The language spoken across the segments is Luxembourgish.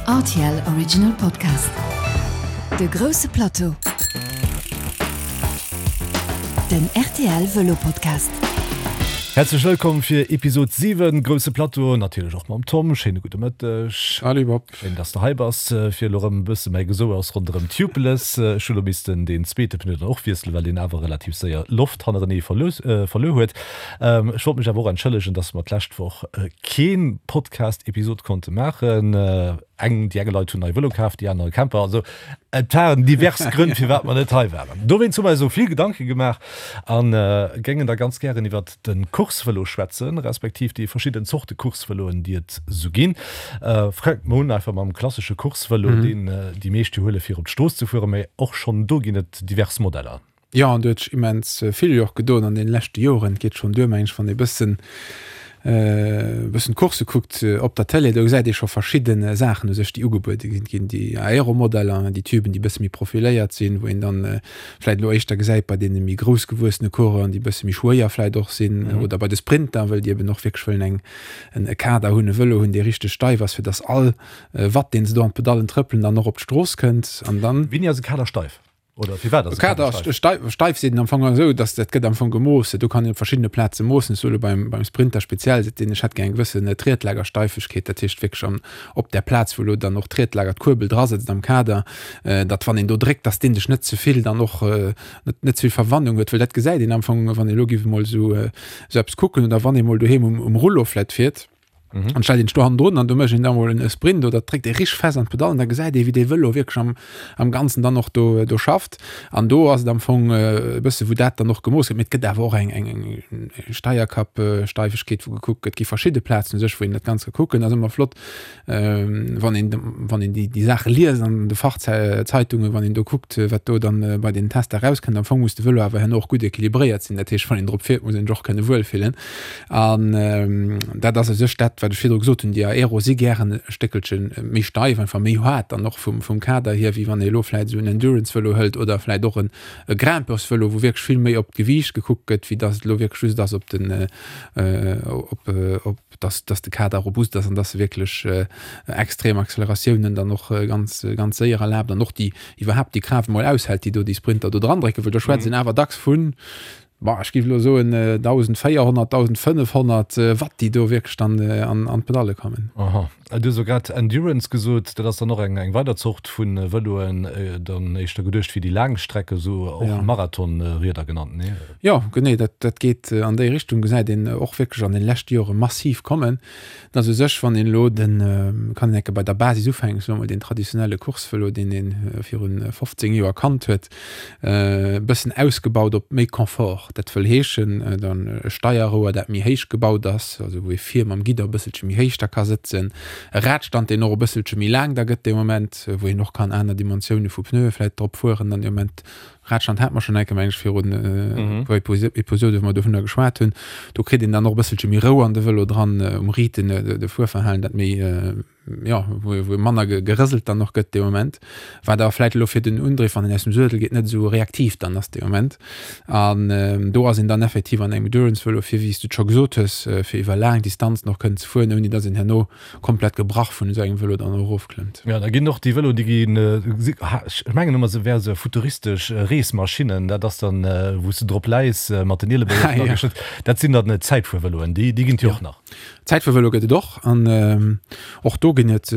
Rtl Original Podcast. De grousse Plateau. Den rtl Vëlo Podcast. Häerzlech wëllkomm fir Episod 7, Grousse Plateau, natierlech och mam Tom. Schéine gudde Mëtteg. Salut Bob. Schéin, dass de hei bass, fir elo erëm e bësse mäi Gesouers ronderëm Tubeless. Ech hu lo missten deen zweete Pneu dann och wiesselen, well deen awer relativ séier Loft hannerenee verluer huet. Ech wollt mech awer och entschëllegen, dass mer d'lescht Woch keen Podcast-Episod konnte maachen. Eng, déi eng Leit hunn nei Vëlo kaf, déi aner e Camper. Also et waren divers Grënn, firwat mer net hei waren. Dowéinst hu mer eis elo vill Gedanke gemaach a géingen da ganz gären iwwert de Coursevëlo schwätzen, respektiv déi verschidden Zorte Coursevëloen, déi et sou ginn. Fänke mer un einfach mam klassesche Coursevëlo, deen déi meescht jo huele fir op d'Strooss ze fueren, mä och schonn do ginn et divers Modeller. Jo, an do huet sech immens vill jo och gedoen an deene leschte Joren. Et geet schonn duer, meng ech, wann ee bëssen, bëssen d'Coursse kuckt op der Tëlee, do gesäit ee scho verschidde Saachen u sech, déi ugebuede ginn. Et ginn déi Aeromodeller, déi Tüben, déi bësse méi profiléiert sinn, wou een dann vläicht elo éischter gesäit bei deene méi groussgewuessene Coureuren, déi bësse méi schwéier vläicht och sinn, oder bei de Sprinter, wëll déi eben och wierklech wëllen eng, en e Kader hunn, e Vëlo hunn, dee richteg steif ass, fir dass all Watt, deen se do an d'Pedallen trëppelen, dann och op d'Strooss kënnt. An dann. Wéini ass e Kader steif? Oder firwat ass e Kader steif? Steif, steif seet een am Fong esou, dass dat gëtt am Fong gemooss. Do kann een op verschiddene Plaze moossen. Ech soe lo beim, beim Sprinter speziell, seet deen, ech hätt gär eng gewëssen Trietlagersteifegkeet. Dat heescht wierklech an, op där Plaz, wou elo dann och d'Trietlager, d'Kuerbel drasëtzt am Kader, datt wann een do dréckt, datt deen sech net ze vill dann och, net, net ze vill Verwandung huet. Well dat gesäit een am Fong, wann ee lo giff emol esou, esou eppes kucken oder wann ee mol doheem um, um Rullo vläit fiert. Mhm. An stellt een sech do hannendrun an do mécht een da mol en Sprint oder dréckt ee richteg fest an d'Pedall an da gesäit ee wéi dee Vëlo wierklech am, am Ganzen dann och do, do schafft. An do ass et am Fong e bësse wou dat dann och gemooss gëtt. Mee et gëtt awer och eng, eng, eng Steierkappsteifegkeet wou gekuckt gëtt. Et gi verschidde Plazen u sech wou een dat Ganzt ka kucken. Dat ass ëmmer flott wann een, wann een déi, déi Saache liest an de Fachzeitungen, wann een do kuckt, wat do dann bei den Tester erauskënnt. Am Fong muss de Vëlo awer herno och gutt equilibréiert sinn. Dat heescht, wann een drop fiert, muss een sech och kënne wuelfillen. An dat ass u sech dat, wat ech virdru gesot hunn, déi Aero si gären e Stéckelche méi steif, einfach méi haart dann och vum, vum Kader hier, wéi wann ee elo vläicht esou en Endurance-Vëlo hëlt oder vläicht och en e Grimpeursvëlo, wou wierklech vill méi op d'Gewiicht gekuckt gëtt, wéi datt et elo wierklech just ass op den, op, op, datt, datt de Kader robust ass an datt e wierklech extrem Acceleratiounen dann och ganz, ganz séier erlaabt an och déi, iwwerhaapt déi Kraaft emol aushält, déi do déi Sprinter do drandrécken, well do schwätzt een awer dacks vun, Bah, ech géif elo soen 1.400, 1.500 Watt, déi do wierklech dann an d'Pedalle kommen. Aha. Du hues elo grad Endurance gesot, dat ass dann och eng eng weider Zort vu Vëloen, dann éischter geduecht fir déi laang Strecke, esou och Marathonrieder genannt, nee? Jo, genee, dat dat geet an déi Richtung, gesäit een och wierklech an de leschte Jore massiv kommen. Et ass u sech, wann een elo den, kann een enke bei der Basis ufänken, ech soe mol deen traditionelle Coursevëlo, deen ee viru 15 Joer kannt huet, e bëssen ausgebaut op méi Confort. Dat wëll heeschen, dann e Steierrouer, dat méi héich gebaut ass, also wou ee vir mam Gidder e bësselche méi héich da ka sëtzen, e Radstand, deen och e bësselche méi laang da gëtt dee Moment, wou een och kann aner Dimensioune vu Pneue vläicht drop fueren dann dee Moment. Radstand hat mer schonn eng Kéier, meng ech, virun e puer Episode, wou mer dovunner geschwat hunn. Do kritt een dann och e bësselche méi Rou an de Vëlo dran, um Riten, de Fuerverhalen, dat méi jo, wou wou manner gerëselt dann och gëtt dee Moment, wat awer vläit elo fir den Undriff, wann een aus dem Suedel geet, net esou reaktiv dann ass dee Moment. An do ass een dann effektiv an engem Endurance-Vëlo, fir wéi s du et scho gesot hues, fir iwwer laang Distanzen och kënnen ze fueren, ouni datt een herno komplett gebrach vun esou engem Vëlo dann och erofklëmmt. Jo, da ginn och déi Vëloen, déi ginn, ech mengen ëmmer se wäre sou futuristesch Reesmaschinnen, dat ass dann, wou s de drop läis mat den Ielebéien ageschnëtt, dat sinn dann Zäitfuervëloen, déi ginn et jo och nach. Zäitfuervëlo gëtt et och an och do ginn et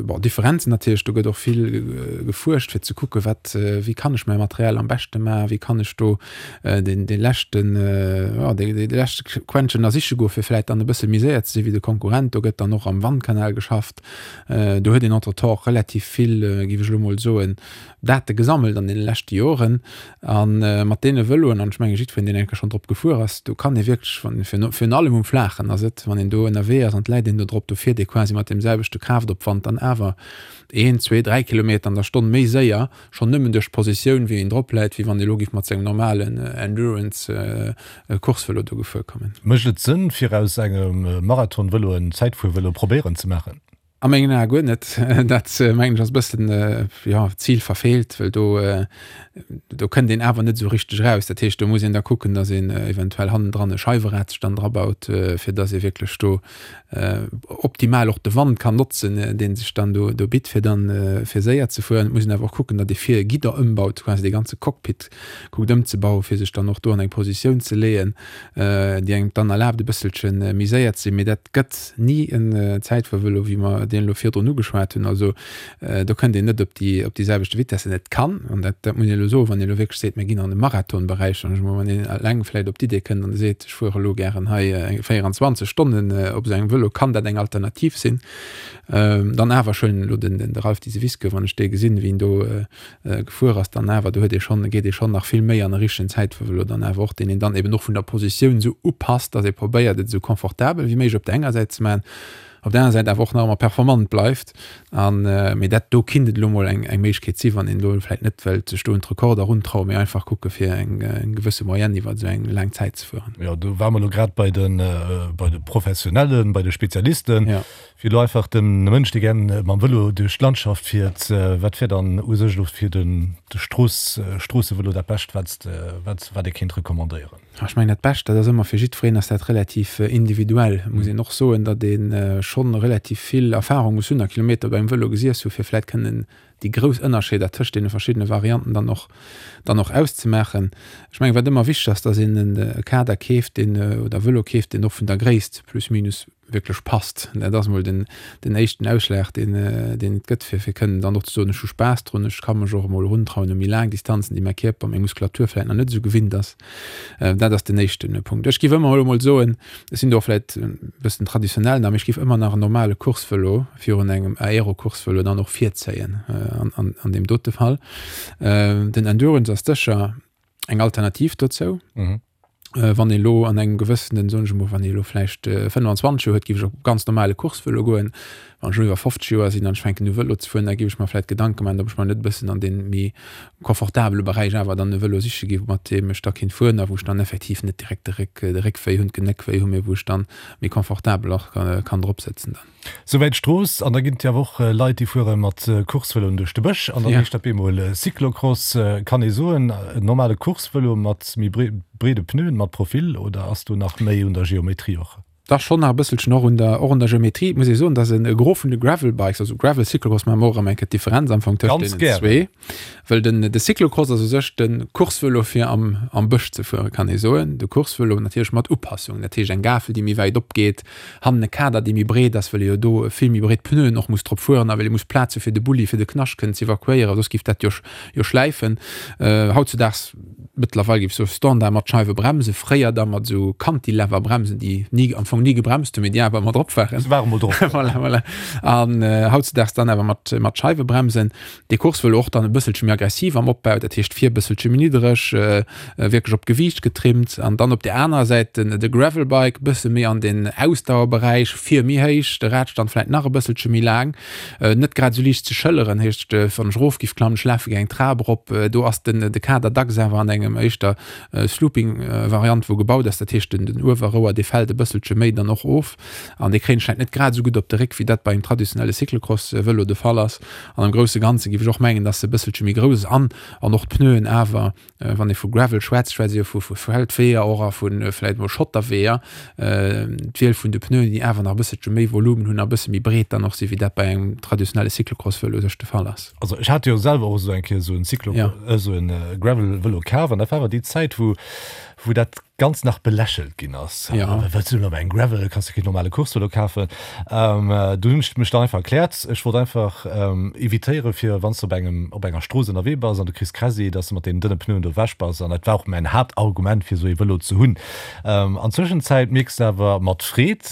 bon Differenzen natierlech. Do gëtt och vill gefuerscht fir ze kucke wat wéi kann ech mäi Material am beschte maachen, wéi kann ech do deen dee leschten jo dee dee leschte Quäntchen da siche goe fir vläit dann e bësse méi séier ze si wéi de Konkurrent. Do gëtt dann och am Wandkanal geschafft. Do huet een entretemps och relativ vill, géif ech elo mol soen, Date gesammelt an deene leschte Joren a mat deene Vëloen, an ech menge jiddwereen, deen eng Kéier schonn drop gefuer ass, do kann ee wierklech, wann virun allem um Flaachen ass et, wann een do ënnerwee ass an et läit een do drop, do fiert ee quasi mat deem selwechte Kraaftopwand dann awer een, zwee, dräi Kilometer an der Stonn méi séier, schonn nëmmen duerch d'Positioun, wéi een drop läit, wéi wann ee lo géif mat sengem normalen Endurance-Coursevëlo do gefuer kommen. Mécht et Sënn, fir aus engem Marathon-Vëlo en Zäitfuervëlo probéieren ze maachen? A mengen Ae guer net. Dat mengen ech ass e bëssen, jo, Zil verfeelt, well do, do kënnt een awer net esou richteg eraus. Dat heescht, do muss een da kucken, datt een eventuell hannendran e Scheiwerad sech dann drabaut, fir datt ee wierklech do optimal och de Wand kann notzen, dee sech dann do, do bitt, fir dann, fir séier ze fueren. Et muss een awer och kucken, datt ee vir e Gidder ëmbaut, quasi dee ganze Cockpit kuckt ëmzebauen, fir sech dann och do an eng Positioun ze leeën, déi engem dann erlaabt, e bësselche méi séier ze sinn. Mee dat gëtt ni en Zäitfuervëlo, wéi mer deen elo virdrun ugeschwat hunn. Also do kënnt een net op déi, op déi selwechte Vitessen. Et kann, an dat, dat muss een elo soen, wann een elo wierklech seet, mir ginn an de Marathonberäich, soen ech emol, wann een eleng vläicht op d'Idee kënnt an seet, ech fuere elo gären hei eng 24 Stonnen op esou engem Vëlo, kann dat eng Alternativ sinn. Dann awer, ech huelen elo den, de Ralph Diseviscourt, wann ech dee gesinn, wéi en do gefuer ass, dann awer, do huet ee schonn, geet ee schonn nach vill méi an e richtegen Zäitfuervëlo dann awer och, deen een dann eben och vun der Positioun esou upasst, datt ee probéiert et esou confortabel wéi méiglech op der enger Säit ze maachen, op der aner Säit awer och nach ëmmer performant bleift. An, mee dat do kinnt et elo mol eng eng Méiglechkeet si wann een elo vläicht net wëllt sech do un d'Rekorder eruntrauen, mee einfach kucke fir eng eng gewësse Moyenne iwwer esou eng laang Zäit ze fueren. Jo, do ware mer elo grad bei de bei de Professionellen, bei de Spezialisten. Jo. Fir elo einfach dem Mënsch, dee gär mam Vëlo duerch d'Landschaft fiert, wat wär dann u sech elo fir den Strooss, Stroossevëlo dat Bescht, wat wat wat ee kéint recommandéieren? Ech mengen dat Bescht, dat ass ëmmer fir jiddwereen ass dat relativ individuell. Et muss een och soen, datt ee schonn relativ vill Erfahrung muss hunn a Kilometer op engem Vëlo gesiess hu fir vläicht kënnen déi grouss Ënnerscheeder tëscht deene verschiddene Varianten dann och dann och auszemaachen. Ech mengen wat ëmmer wichteg ass, datt een e Kader keeft, deen oder e Vëlo keeft, deen och vun der Gréisst plus minus wierklech passt. Dat ass emol den, den éischten Ausschlag, deen, deen et gëtt, fir, fir kënnen dann och ze soen, ech hu Spaass drun, ech ka mech och emol eruntrauen u méi laang Distanzen, déi mäi Kierper, meng Muskulatur vläicht nach net esou gewinnt ass. Dat ass den éischten Punkt. Ech géif ëmmer elo emol soen, ech sinn do och vläicht e bëssen traditionell nach, mee ech géif ëmmer nach en normale Coursevëlo virun engem Aero-Coursevëlo dann och virzéien an, an, an deem dote Fall. Den Endurance ass sécher eng Alternativ dozou. Wann ee lo an engem gewëssenen, soen ech emol, wann ee lo vläicht 25 Joer huet, géif ech op ganz normale Coursevëlo goen. Wann ech elo iwwer 50 Joer sinn an ech fänken u Vëlo ze fueren, da géif ech mer vläicht Gedanke maachen, ob ech mer net e bëssen an dee méi confortabele Beräich awer dann e Vëlo siche géif, mat deem ech da kinnt fueren a wou ech dann effektiv net direkt de Réck, de Réckwéi hunn, d'Genéckwéi hunn, mee wou ech dann méi confortabel och kann drop sëtzen dann. Souwäit d'Strooss. An da ginn et jo awer och Leit, déi fuere mat Coursevëloen duerch de Bësch. An dann heescht dat bemol Cyclocross. Kann ee soen, en normale Coursevëlo mat méi breede Pneuen, mat Profil, oder ass do nach méi un der Geometrie och? Dach, schonn nach e bësselchen och un der, och un der Geometrie. Et muss ee soen, dass e Gros vun de Gravel-Bikes, also Gravel, Cyclocross, maache mer och erëm eng Kéier d'Differenz am Fong tëscht Ganz deenen gären. zwee. Well den, de Cyclocross ass u sech de Coursevëlo fir am, am Bësch ze fueren, kann ee soen. De Coursevëlo natierlech mat Upassungen, dat heescht eng Gafel, déi méi wäit opgeet, Hannen e Kader, dee méi breet ass, well ee jo do vill méi breet Pneuen och muss drop fueren a well ee muss Plaz hu fir de Bulli, fir de Knascht kënnen z'evakuéieren, soss giff dat jo jo schläifen. Hautzudaags, mëttlerweil géif ech soen, Standard mat Scheiwebremsen, fréier da mat esou Cantilever-Bremsen, déi ni, am Fong ni gebremst hunn, mee déi awer ëmmer drop waren. Se ware mol drop. Voilà, voilà. An hautzudaags dann awer mat, mat Scheiwebremsen. Dee Coursevëlo och dann e bësselche méi aggressiv am Opbau, dat heescht vir e bësselche méi niddereg, wierklech op d'Gewiicht getrimmt an dann op där anerer Säit den de Gravelbike bësse méi an den Ausdauerberäich, vir méi héich, de Radstand vläit nach e bësselche méi laang, net grad esou liicht ze schëlleren, heescht wann ech erof giff klammen, ech lafe gär eng Trap erop, do ass den de Kader dacks awer an engem éischter Slooping Variant wou gebaut ass, dat heescht den den Uewerrouer dee fält e bësselche méi dann och of an dee kréien ech vläit net grad esou gutt op de Réck wéi dat bei engem traditionelle Cyclocross Vëlo de Fall ass. An am grousse Ganze géif ech och mengen, dass se e bësselche méi grouss ass an an och d'Pneuen awer, wann ee vu Gravel schwätzt, schwätzt ee jo vu vu Feldweeër och a vu vläicht emol Schotterweeër, d'Wiel vun de Pneuen, déi awer nach e bësselche méi Volumen hunn a e bësse méi breet dann och sinn, wéi dat bei engem traditionelle Cyclocross-Vëlo u sech de Fall ass. Also ech hat jo selwer och esou eng Kéier esou en Cyclo, esou en Gravel-Vëlo kaf an dat war awer déi Zäit, wou wou dat Ganz nach belächelt ginn ass. Ja. Wëlls du elo eng Gravel, kanns de keen normale Coursevëlo kafen. Du hunn ech mech dann einfach erkläert, ech wollt einfach evitéiere fir wann s de op engem, op enger Strooss ënnerwee bass an du kriss Kräsi, dass de mat deenen dënne Pneuen do ewech bass. An dat war och mäin Haaptargument fir esou ee Vëlo ze hunn. An Zwëschenzäit mierks de awer mat Freed,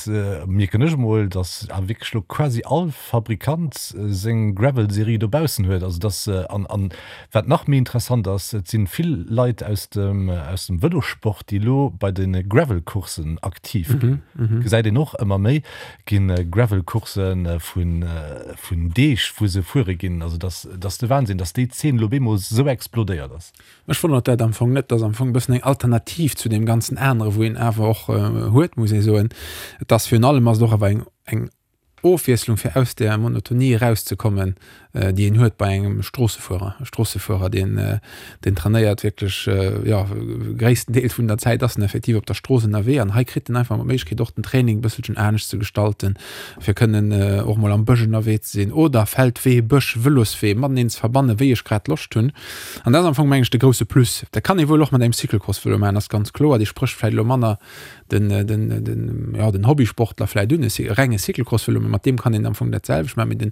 mierken ech emol, dass awer wierklech elo quasi all Fabrikant seng Gravel-Serie dobaussen huet. Also dass an, an Wat nach méi interessant ass, et sinn vill Leit aus dem aus dem Vëlosport, déi elo bei de Gravel-Courssen aktiv ginn. Gesäit een och ëmmer méi, ginn Gravel-Coursse vun vun Deeg, wou se fuere ginn. Also dass dass de Wahnsinn, dass déi Zeen elo bemol esou explodéiert ass. Mech wonnert dat am Fong net, dass am Fong e bëssen eng Alternativ zu deem ganzen anere wou een awer och huet, muss ee soen. Et ass virun allem ass et och awer eng eng. Ofwiesslung fir aus där Monotonie erauszekommen, déi een huet bei engem Stroossefuerer. E Stroossefuerer, deen, deen trainéiert wierklech, jo, gréisstendeels vun der Zäit ass en effektiv op der Strooss ënnerwee an hei kritt en einfach emol d'Méiglechkeet och den Training e bësselchen anescht ze gestalten, fir kënnen och mol am Bësch ënnerwee ze sinn oder Feldwee, Bësch, Vëloswee mateneen ze verbannen, wéi ech grad Loscht hunn. An dat ass am Fong, meng ech, de grousse Plus. Dat kann ee wuel och mat engem Cyclocross-Vëlo maachen, ass ganz kloer. Dee sprécht vläicht elo manner den, den, den, ja, den Hobbysportler vläit un, e renge Cyclocross-Vëlo, mee mat deem kann een am Fong dat selwecht maachen. Mee den,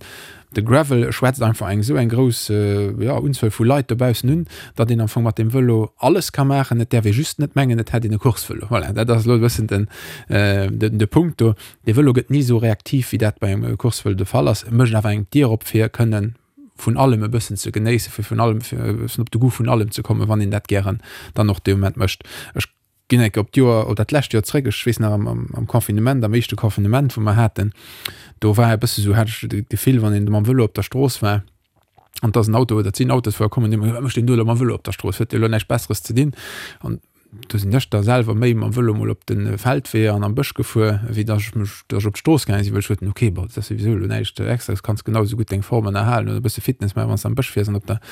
de Gravel schwätzt einfach eng esou eng grouss, ja, Unzuel vu Leit dobaussen un, datt een am Fong mat deem Vëlo alles ka maachen. Et däerf ee just net mengen, et hätt een e Course-Vëlo. Voilà, dat ass elo e bëssen den, den, de Punkt do. Dee Vëlo gëtt ni esou reaktiv, wéi dat bei engem Course-Vëlo de Fall ass, mécht awer engem d'Dier op, fir kënnen vun allem e bëssen ze genéissen, fir vun allem, fir e bëssen op de Goût vun allem ze kommen, wann een dat gären dann och dee Moment mécht. Ech ginn eng Kéier op d'Joer, op dat lescht Joer zréck, ech weess nach am, am, am Confinement, am éischte Confinement, wou mer haten, do war e bësse sou, hat ech d'Gefill, wann een mam Vëlo op der Strooss war, an et ass en Auto oder et sinn Autosfuerer kommen, déi hu wat mécht deen do elo mam Vëlo op der Strooss, huet dee elo näischt Besseres ze dinn? An do sinn ech da selwer méi mam Vëlo mol op de Feldweeër an am Bësch gefuer, wéi datt ech mech, datt ech op d'Strooss gaange sinn, well ech huet, okay, bon, dat ass souwisou elo näischt Extraes, kanns genau esou gutt deng Form ënnerhalen oder e bësse Fitness maachen, wann s de am Bësch fiers an op der,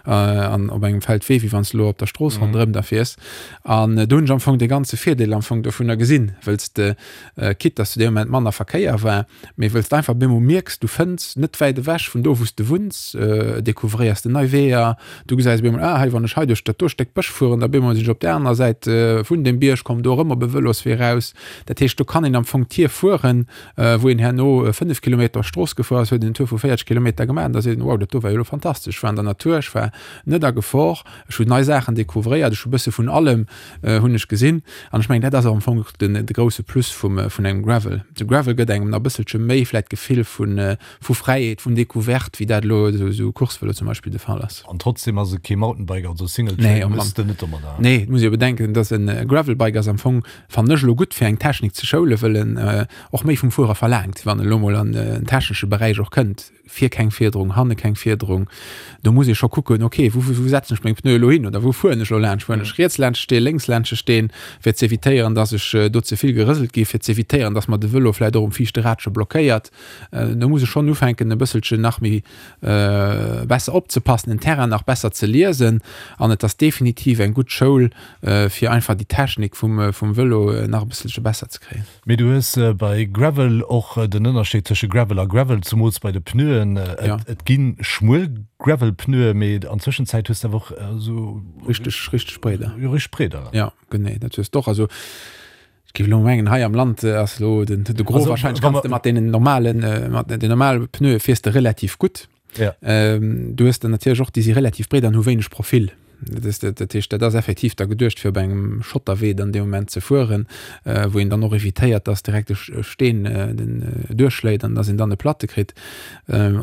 an op engem Feldwee, wéi wann s de elo op der Strooss ronderëm da fiers. An do hunn ech am Fong dee ganze Virdeel am Fong dovunner gesinn, wëll s de, quitte dass zu deem Moment manner Verkéier war, mee wëll s de einfach op eemol mierks, du fënns net wäit ewech vun do, wou s de wunns, découvréiers de nei Weeër, du gesäis op eemol, ah hei, wann ech hei duerch dat do Stéck Bësch fueren, da op eemol sinn ech op där anerer Säit vun deem Bierg, komm do erëm op e Vëloswee raus. Dat heescht, do kann een am Fong d'Tier fueren, wou een herno 5 Kilometer Strooss gefuer ass, huet een en Tour vu 40 Kilometer gemaach an da seet een, wow, dat do war jo elo fantastesch, ech war an der Natur, ech war net a Gefor, Ech hunn nei Saachen découvréiert, ech hu bësse vun allem hunn ech gesinn. An ech mengen, dat ass och am Fong och den, de grousse Plus vum, vun engem Gravel. De Gravel gëtt engem nach e bësselche méi vläicht d'Gefill vun, vu Fräiheet, vun Découverte, wéi dat elo esou, esou Coursevëlo zum Beispill de Fall ass. An trotzdem ass et kee Mountainbike, also Single Trail Nee, muss de net domadder. Nee, et muss ee jo bedenken, dass e Gravelbike ass am Fong, fannen ech elo, gutt fir eng Technik ze schoulen, wëll en och méi vum Fuerer verlaangt, wann en elo mol an den technesche Beräich och kënnt. Vir keng Fiederung, hanne keng Fiederung. Do muss ee scho kucken, okay, wou, wou setzen ech meng Pneue elo hin oder wou fueren ech elo laanscht? Fueren ech riets laanscht de Steen, lénks laanscht de Steen, fir z'evitéieren, dass ech do ze vill gerëselt gi, fir z'evitéieren, dass mer de Vëlo vläicht och um viischte Rad scho blockéiert. Do muss ech schonn ufänken, e bësselchen nach méi besser opzepassen, den Terrain nach besser ze liesen. An et ass definitiv eng gutt Schoul, fir einfach déi Technik vum, vum Vëlo nach e bësselche besser ze kréien. Mee du hues bei Gravel och den Ënnerscheed tësche Gravel a Gravel, zumools bei de Pneuen. Et gi schmuel Gravel-Pneue, mee an Zwëschenzäit hues de awer och esou. Richteg, richteg breeder. Jo, richteg breeder. Jo, genee, dat hues de och. Also ech géif elo mengen, hei am Land ass elo den de Gros wahrscheinlech kanns de mat deenen normalen, mat den normale Pneue fiers de relativ gutt. Ja. Ähm, du hues dann natierlech och, déi si relativ breet an hu wéineg Profil. Dat ass, dat heescht, dat ass effektiv da geduecht fir op engem Schotterwee dann dee Moment ze fueren, äh, wou een dann och evitéiert, dass direkt e Steen äh, den äh, duerchschléit an dass een dann e Platte kritt. Ähm,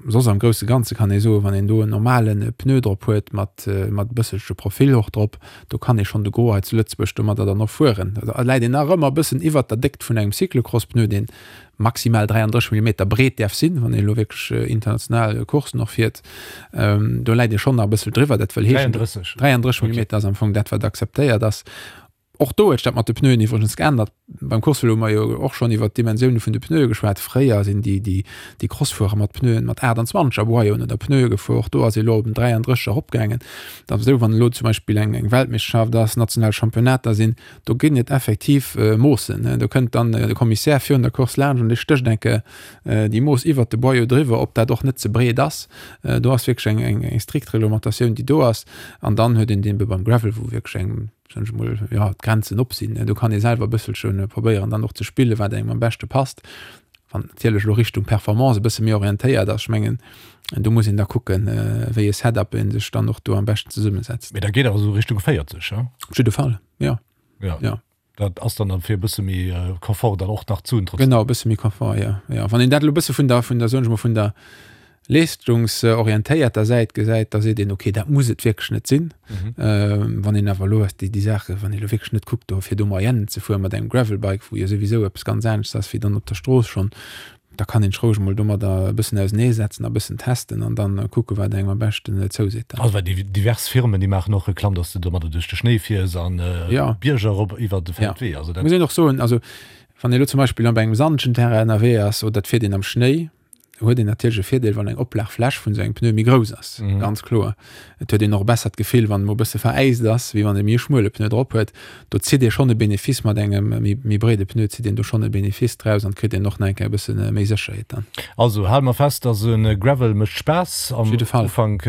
soss am grousse Ganze kann ee soen, wann een do en normalen Pneu drop huet mat, äh, mat e bësselche Profil och drop, do kann ee schonn de Gros hei zu Lëtzebuerg domadder dann och fueren. Da läit een nach ëmmer e bëssen iwwert der Déckt vun engem Cyclocross-Pneu, deen maximal 33 Millimeter breet däerf sinn, wann een elo wierklech international Coursen och fiert. Do läit ee schonn nach e bëssel driwwer. Dat wëll heeschen, 33. 33 Millimeter ass am Fong dat, wat akzeptéiert ass. Och do huet sech dat mat de Pneuen iwwregens geännert. Beim Coursevëlo hu mer jo och schonn iwwert d'Dimensioune vun de Pneue geschwat. Fréier sinn déi, déi, déi Crossfuerer mat Pneuen mat 28er Boyauxen oder Pneue gefuer. Och do ass ee elo op en 33er eropgaangen. Dat ass esou, wann elo zum Beispill eng, eng Weltmeeschterschaft ass, national Championnater sinn, Do ginn et effektiv Moossen. Do kënnt dann de Kommissär virun der Course laanscht an dee stécht eng Kéier déi Mooss iwwert de Boyau driwwer, ob dat och net ze breet ass. Do ass wierklech eng eng strikt Reglementatioun, déi do ass. An dann huet een dee beim Gravel, wou wierklech eng, soen ech emol, jo, d'Grenzen op sinn. Do kann ee selwer e bësselche probéieren dann och ze spillen, wat engem am beschte passt. Wann natierlech elo Richtung Performance e bësse méi orientéiert ass, ech mengen, do muss een da kucken, wéi e Setup ee sech dann och do am beschten zesummesetzt. Mee da geet awer esou Richtung 40, he? Op jidde Fall, jo. Jo. Jo. Dat ass dann fir e bësse méi Confort dann och nach ze hunn trotzdem. Genau, e bësse méi Confort, jo. Jo, wann een dat elo e bësse vun der, vun der, soen ech mol, vun der leeschtungsorientéierter Säit gesäit, da seet een, okay, dat muss et wierklech net sinn. Wann een awer elo déi, déi Saache, wann ee elo wierklech net kuckt, do fir do Moyennen ze fueren mat engem Gravelbike, wou jo souwisou eppes ganz anescht ass wéi dann op der Strooss schonn, da kann een sech roueg emol domadder e bëssen auseneesetzen a bëssen testen an dann kucke wat engem am beschten zouseet dann. Also well déi divers Firmen, déi maachen och Reklamm, datt s de domadder duerch de Schnéi fiers an Bierger erop iwwer de Feldwee. Also dat. Muss een och soen, also. Wann ee lo zum Beispill op engem sandegen Terrain ënnerwee ass oder et fiert een am Schnéi, huet een natierlech e Virdeel, wann eng Oplagfläch vun esou engem Pneu méi grouss ass, ganz kloer. Et huet een och e bessert Gefill, wann e mol e bësse veräist ass, wéi wann ee méi e schmuele Pneu drop huet. Do zitt ee schonn e Benefice mat engem méi, méi breede Pneu zitt een do schonn e Benefice draus an kritt een och nach eng Kéier e bësse méi Sécherheet dann. Also hale mer fest, dass e Gravel mécht Spaass. Am Ufank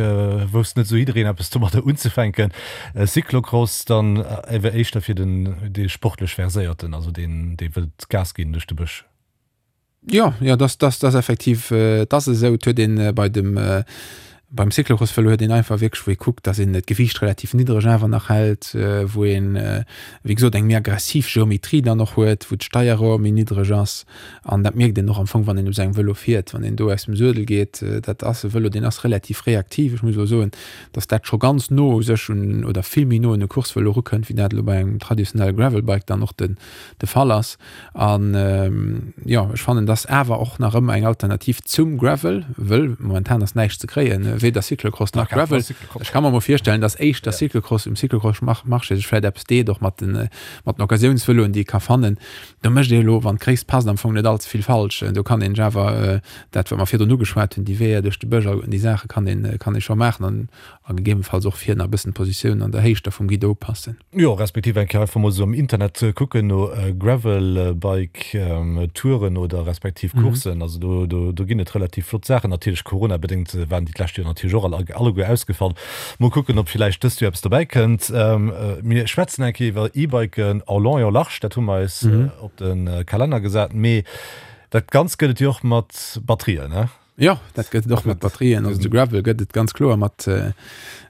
wousst net esou jiddereen eppes domadder unzefänken. Cyclocross dann awer éischter fir den dee sportlech Verséierten, also deen, dee wëllt Gas ginn duerch de Bësch. Jo, jo, dass, dass, dass effektiv, et ass esou. Et huet een bei dem, beim Cyclocross-Vëlo huet een einfach wierklech, wou ee kuckt, dass een d'Gewiicht relativ niddreg awer nach hält, wou een, wéi gesot, eng méi aggressiv Geometrie dann och huet, wou d'Steierrohr méi niddreg ass. An dat mierkt een och am Fong, wann een op sengem Vëlo fiert, wann een do aus dem Suedel geet. Dat ass e Vëlo, deen ass relativ reaktiv. Ech muss elo soen, dass dat scho ganz no u sech un, oder vill méi no un e Coursevëlo erukënnt, wéi dat elo bei engem traditionelle Gravelbike dann och de, de Fall ass. An jo, ech fannen, dass awer och nach ëmmer eng Alternativ zum Gravel, wëll momentan ass näischt ze kréien, weder Cyclocross nach Gravel. Ech ka mer mol virstellen, dass éischter Cyclocross um Cyclocross-Marché sech vläicht eppes deet, och mat den, mat den Occasiounsvëloen, déi ee ka fannen. Do mécht ee elo, wann d'Gréisst passt, am Fong net all ze vill falsch. Do kann een sech awer dat, wat mer virdrun ugeschwat hunn, déi Weeër duerch de Bësch, all déi Saache kann een, kann ee scho maachen an a gegebenfalls och vir nach e bëssen d'Positioun an der Héicht da vum Guidon upassen. Jo, respektiv eng Kéier einfach mol esou am Internet kucken no Gravel-Bike Touren oder respektiv Coursen. Also do, do, do ginn et relativ flott Saachen. Natierlech Corona-bedéngt waren déi d'lescht Joer natierlech och all, alleguer ausgefall. Mol kucken, ob villäicht dëst Joer eppes dobäi kënnt. Mir schwätzen eng Kéier iwwer E-Biken en long et en large, dat hu mer eis op de Kalenner gesat. Mee dat Ganzt gëtt et jo och mat Batterien, ne? Jo, dat gëtt et och mat Batterien. Also de Gravel gëtt et ganz kloer mat,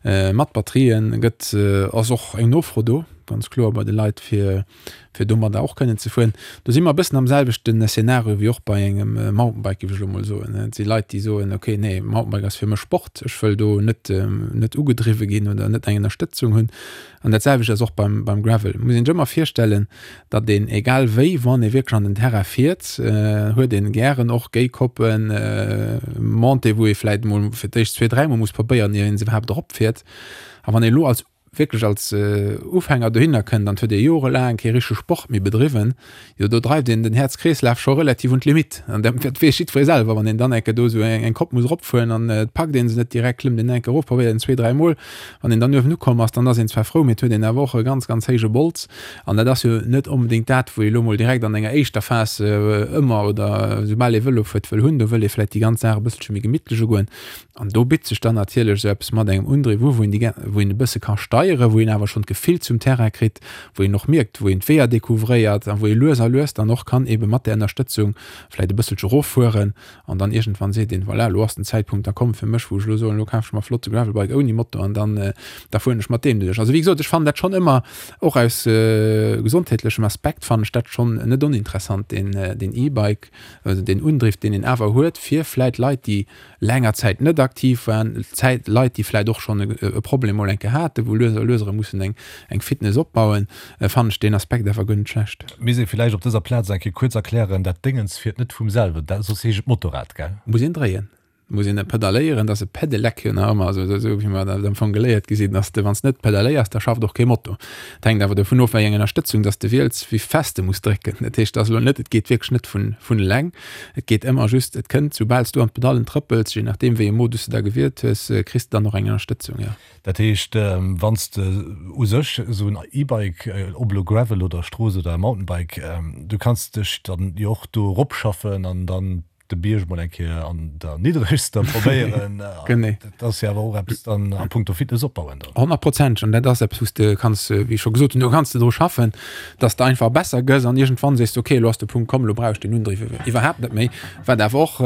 mat Batterien. Gëtt, ass och eng Nofro do, ganz kloer bei de Leit, fir, fir domadder och kënnen ze fueren. Do si mer e bëssen am selwechten Szenario wéi och bei engem Mountainbike, géif ech elo mol soen. Et si Leit, déi soen, okay, nee, Mountainbike ass fir mech Sport, ech wëll do net, net ugedriwwe ginn oder net eng Ënnerstëtzung hunn. An dat selwecht ass och beim, beim Gravel. Et muss een sech ëmmer virstellen, datt een, egal wéi, wann ee wierklech an den Terrain fiert, huet een gären och géi Koppen, Montée, wou ee vläit emol fir d'éischt zwee, dräimol muss probéieren, ier een se iwwerhaapt eropfiert. A wann ee elo als, wierklech als Ufänger dohinner kënnt an et huet ee jorelaang kee richtege Sport méi bedriwwen, Jo, do dreift een den Häerz-Kreeslaf scho relativ un d'Limitt. An dat weess jiddweree selwer, wann een dann eng Kéier do esou eng Kopp muss eropfueren an et packt ee se net direkt, klëmmt een eng Kéier erof, probéiert een zwee, dräi Mol. Wann een dann uewen ukomm ass, dann ass een zwar frou, mee et huet een awer och e ganz, ganz héije Bols. An dat ass jo net onbedéngt dat, wou ee lo mol direkt an enger éischter Phas ëmmer oder soubal ee Vëlo fuert wëll hunn. Do wëll ee vläicht déi ganz Saach e bësselche méi gemittlech ugoen. An do bitt sech dann natierlech esou eppes mat engem Undriw u, wou een déi, wou een e bësse ka steieren, wou een awer schonn d'Gefill zum Terrain kritt, wou een och mierkt, wou een d'Weeër découvréiert a wou ee lues a lues dann och kann eebe mat där Ënnerstëtzung vläicht e bësselche eroffueren an dann iergendwann seet een, voilà, elo ass den Zäitpunkt da komm fir mech, wou ech elo soen, elo kafe ech mer e flotte Gravelbike ouni Motor an dann, da fueren ech mat deem doduerch. Also wéi gesot, ech fannen dat schonn ëmmer, och aus gesondheetlechem Aspekt fannen ech dat schonn net oninteressant, deen, deen E-Bike, also deen Undriff, deen een awer huet fir vläicht Leit, déi länger Zäit net aktiv waren, Zäit, Leit, déi vläit och schonn e Problem mol eng Kéier haten, wou lues a lues erëm mussen eng, eng Fitness opbauen, fannen ech deen Aspekt awer guer net schlecht. Misst ee villäicht op dëser Plaz eng Kéier kuerz erklären, dat Déngens fiert net vum selwen, dat, soss heescht et Motorrad, gell? Muss een dréien, muss een pedaléieren, dat ass e Pedelec jo nach ëmmer, also esou wéi mer dat am Fong geléiert gi sinn, dass de, wann s de net pedaléiers, da schafft och kee Moto. Et hänkt awer dovun of, wéi eng Ënnerstëtzung dass de wiels, wéi fest de muss drécken. Dat heescht, et ass elo net, et geet wierklech net vun, vun eleng. Et geet ëmmer just, et kënnt, soubal s du an d'Pedallen trëppels, je nachdeem wéi e Modus de da gewielt hues, kriss de dann och eng Ënnerstëtzung, jo. Dat heescht, wann s de u sech esou en E-Bike, ob elo Gravel oder Strooss oder Mountainbike, du kanns dech dann jo och do eropschaffen an dann de Bierg mol eng Kéier an der niddregster probéieren. Genee. Dat ass jo awer och eppes dann a punkto Fitness opbauen dann. Honnertprozenteg. An dat ass eppes, wou s de kanns, wéi ech scho gesot hunn, do kanns de dru schaffen. dass de einfach besser gëss an iergendwann sees de, okay, elo ass de Punkt komm, elo brauch ech deen Undriw iwwerhaapt net méi. Wat awer och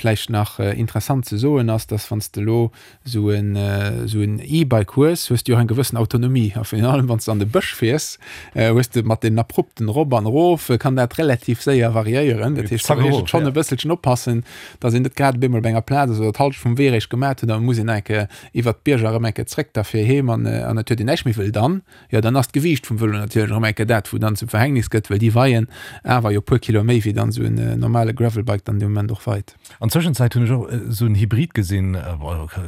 vläicht nach interessant ze soen ass, dass wann s de elo esou en esou en E-Bike hues, hues de jo och eng gewëssen Autonomie a virun allem wann s de an de Bësch fiers, hues de mat deenen abrupten erop an erof, kann dat relativ séier variéieren. Dat heescht, da reegt et schonn e bëssen. bësselchen oppassen, datt een net grad op eemol op enger Plaz ass, wou d'Halschent vum Wee eréischt gemat huet, a muss een nach eng Kéier iwwert d'Bierger erëm eng Kéier zréck da fir heem an an et huet een näischt méi, wëll dann, jo, dann ass d'Gewiicht vum Vëlo natierlech erëm eng Kéier dat, wou dann zum Verhängnis gëtt, well déi weien awer jo e puer Kilo méi wéi dann esou en normale Gravelbike dann dee Moment och weit. An Zwëschenzäit hunn ech och esou en Hybrid gesinn,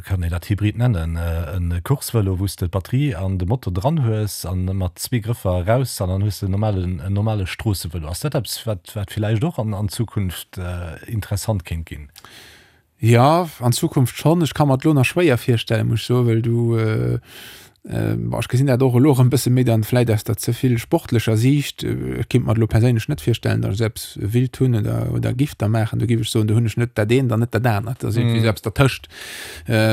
kann een dat Hybrid nennen, e Coursevëlo wou s de d'Batterie an de Motor dran hues an mat zwee Grëffer eraus an dann hues de en normalen, en normale Stroossevëlo. Ass dat eppes wat wat villäicht och an an Zukunft interessant kéint ginn? Jo, an Zukunft schonn. Ech ka mer et elo nach schwéier virstellen, muss ech soen, well du Bon, ech gesinn dat och elo erëm e bësse méi dann vläit aus der ze vill sportlecher Siicht. Ech kéint mer et elo perséinlech net virstellen, datt ech esou eppes willt hunn oder, oder giff da maachen. Do giff ech soen, do hunn ech net dat eent an net dat anert. Dat ass iergendwéi esou eppes dertëscht.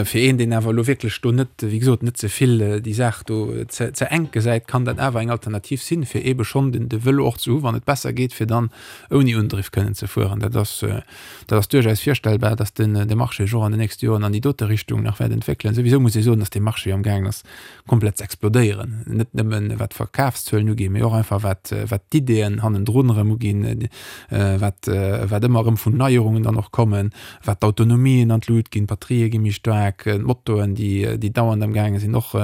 Fir een, deen awer elo wierklech do net, wéi gesot, net ze vill déi Saach do ze, ze enk gesäit, kann dat awer eng Alternativ sinn, fir eebe schonn den, de Vëlo och ze hu wann et besser geet, fir dann ouni Undriff kënnen ze fueren. Dat ass, Dat ass duerchaus virstellbar, datt den de Marché sech och an den nächste Joren an déi dote Richtung nach wäert entwéckelen. Souwisou muss ee soen, datt dee Marché amgaangen ass komplett ze explodéieren, net nëmmen wat d'Verkafszuelen uginn, mee och einfach wat wat d'Ideeën hannendrun erëm uginn, wat wat ëmmer erëm vun Neierungen dann och kommen, wat d'Autonomien an d'Lut ginn, d'Batterië gi méi staark, d'Motoren déi déi dauernd amgaange sinn och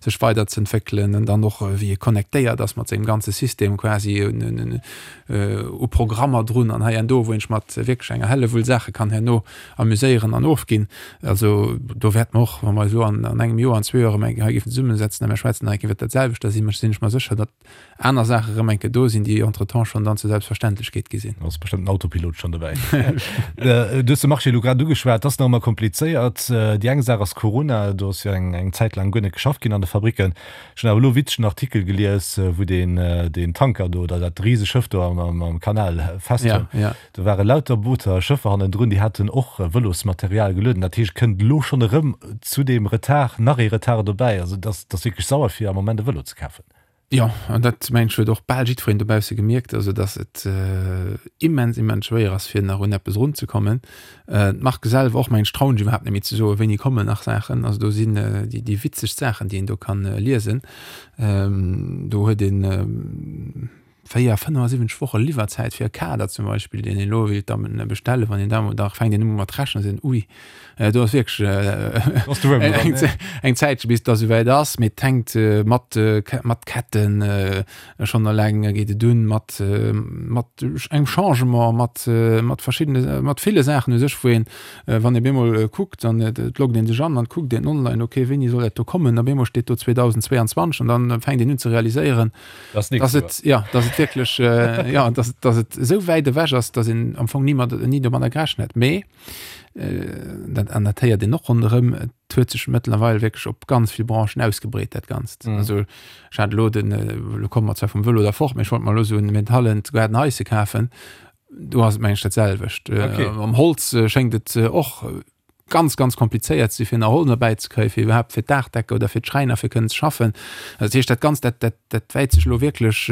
sech weiderzeentwéckelen an dann och wéi e connectéiert ass mat sengem ganze System quasi u Programmer drun an hei an do, wou een sech mat wierklech enger Hellewull Saache kann herno amuséieren an ofginn. Also do wäerte mer och, wa mer eis elo an engem Joer, an zwee Joer erëm eng Kéier hei géifen zesummesetzen a mir schwätzen nach eng Kéier iwwert dat selwecht, da si mech, sinn ech mer sécher, datt aner Saache erëm eng Kéier do sinn, déi entretemps schonn dann zur Selbstverständlechkeet gi sinn. Do ass bestëmmt den Autopilot schonn dobäi. Du hues de Marché elo grad ugeschwat, et ass nach ëmmer komplizéiert. Déi eng Saach ass Corona, do ass jo eng Zäit laang guer net geschafft ginn an de Fabricken. Ech hunn awer elo e witzegen Artikel gelies, wou deen, deen Tanker do oder dat riseg Schëff do am, am, am Kanal fest hung. Ja, ja. Do ware lauter Booter a Schëffer hannendrun, déi haten och Vëlosmaterial gelueden. Dat heescht, et kënnt elo schonn erëm zu deem Retard nach ee Retard dobäi. Also et ass, et ass wierklech sauer fir am Moment e Vëlo ze kafen. Jo, an dat mengen ech huet och bal jiddwereen dobausse gemierkt, also datt et immens, immens schwéier ass fir nach un eppes erunzekommen. D'Marke selwer och, mengen ech, trauen sech iwwerhaapt net méi ze soen, wéini kommen nach Saachen. Also do sinn déi, déi witzegst Saachen, déi een do kann liesen. Do huet een 4, 75 Woche Liwwerzäit fir e Kader zum Beispill, deen een elo wéilt da bestellen. Wann een da, da fänkt een u mat rechnen a seet, ui, do ass wierklech eng Zäitche bis et da souwäit ass. Mee et hänkt mat, mat Ketten schonn eleng geet et un, mat, mat engem Changement, mat, mat verschiddene, mat ville Saachen u sech, wou een, wann ee bemol kuckt, dann et loggt een sech an, dann kuckt een online, okay, wéini soll dat do kommen? Op eemol steet do 2022 an dann fänkt een un ze realiséieren, dass et, ja, dass et wierklech, ja, dass, dass et esou wäit ewech ass, dass een am Fong ni mat, ni domadder gerechent hätt. Mee dat, an dat héiert een och ronderëm, et huet sech mëttlerweil wierklech op ganz vill Branchen ausgebreet, dat Ganzt. Mhm. Also ech hat elo den, elo komme mer zwar vum Vëlo da fort, mee ech wollt mer elo esou en metallent Gaardenhaisse kafen, do ass et mengen ech dat selwecht. Okay. Am Holz schéngt et och ganz, ganz komplizéiert ze si fir nach Holz erbäi ze kréien, fir iwwerhaapt fir d'Daachdecker oder fir d'Schräiner fir kënnen ze schaffen. Also dat heescht, dat Ganzt, dat, dat, dat wäit sech elo wierklech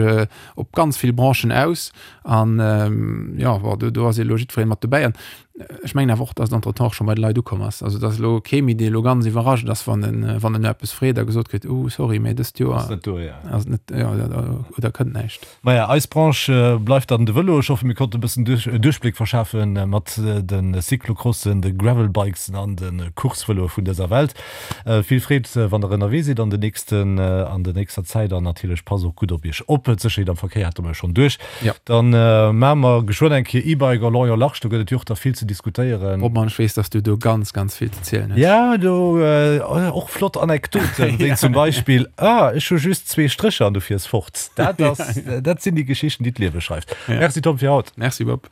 op ganz vill Branchen aus an jo, bon, do, do ass elo jiddweree mat dobäi. An ech mengen awer och, datt et entretemps och scho bei de Leit ukomm ass. Also datt elo kee méi, dee elo ganz iwwerrascht ass, wann en, wann en eppes freet a gesot kritt, Uh, sorry, mä dëst Joer Ass net do, ja. ass et net, jo, oder kënnt näischt. Maja, eis Branche bleift dann de Vëlo. Ech hoffe mir konnten e bëssen Duerchbléck verschafe mat de Cyclocrossen, de Gravelbikesen an de Coursevëloe vun dëser Welt. Vill Freed wann der ënnerwee sidd an de nächsten, an der nächster Zäit an natierlech passt och gutt op iech op. D'Sécherheet am Verkéier hate mer jo schonn duerch. Dann maache mer geschwënn eng Kéier E-Bike en long et en large, do gëtt et jo och da vill ze diskutéieren. Bob, an ech weess, dass du do ganz, ganz vill ze zielen hues. Ja, do och flott Anekdoten, wéi zum Beispill, Ah, ech hu just zwee Strécher an du fiers fort. Dat ass, dat sinn déi Geschichten, déi d'Liewe schreift. Merci Tom fir haut. Merci Bob.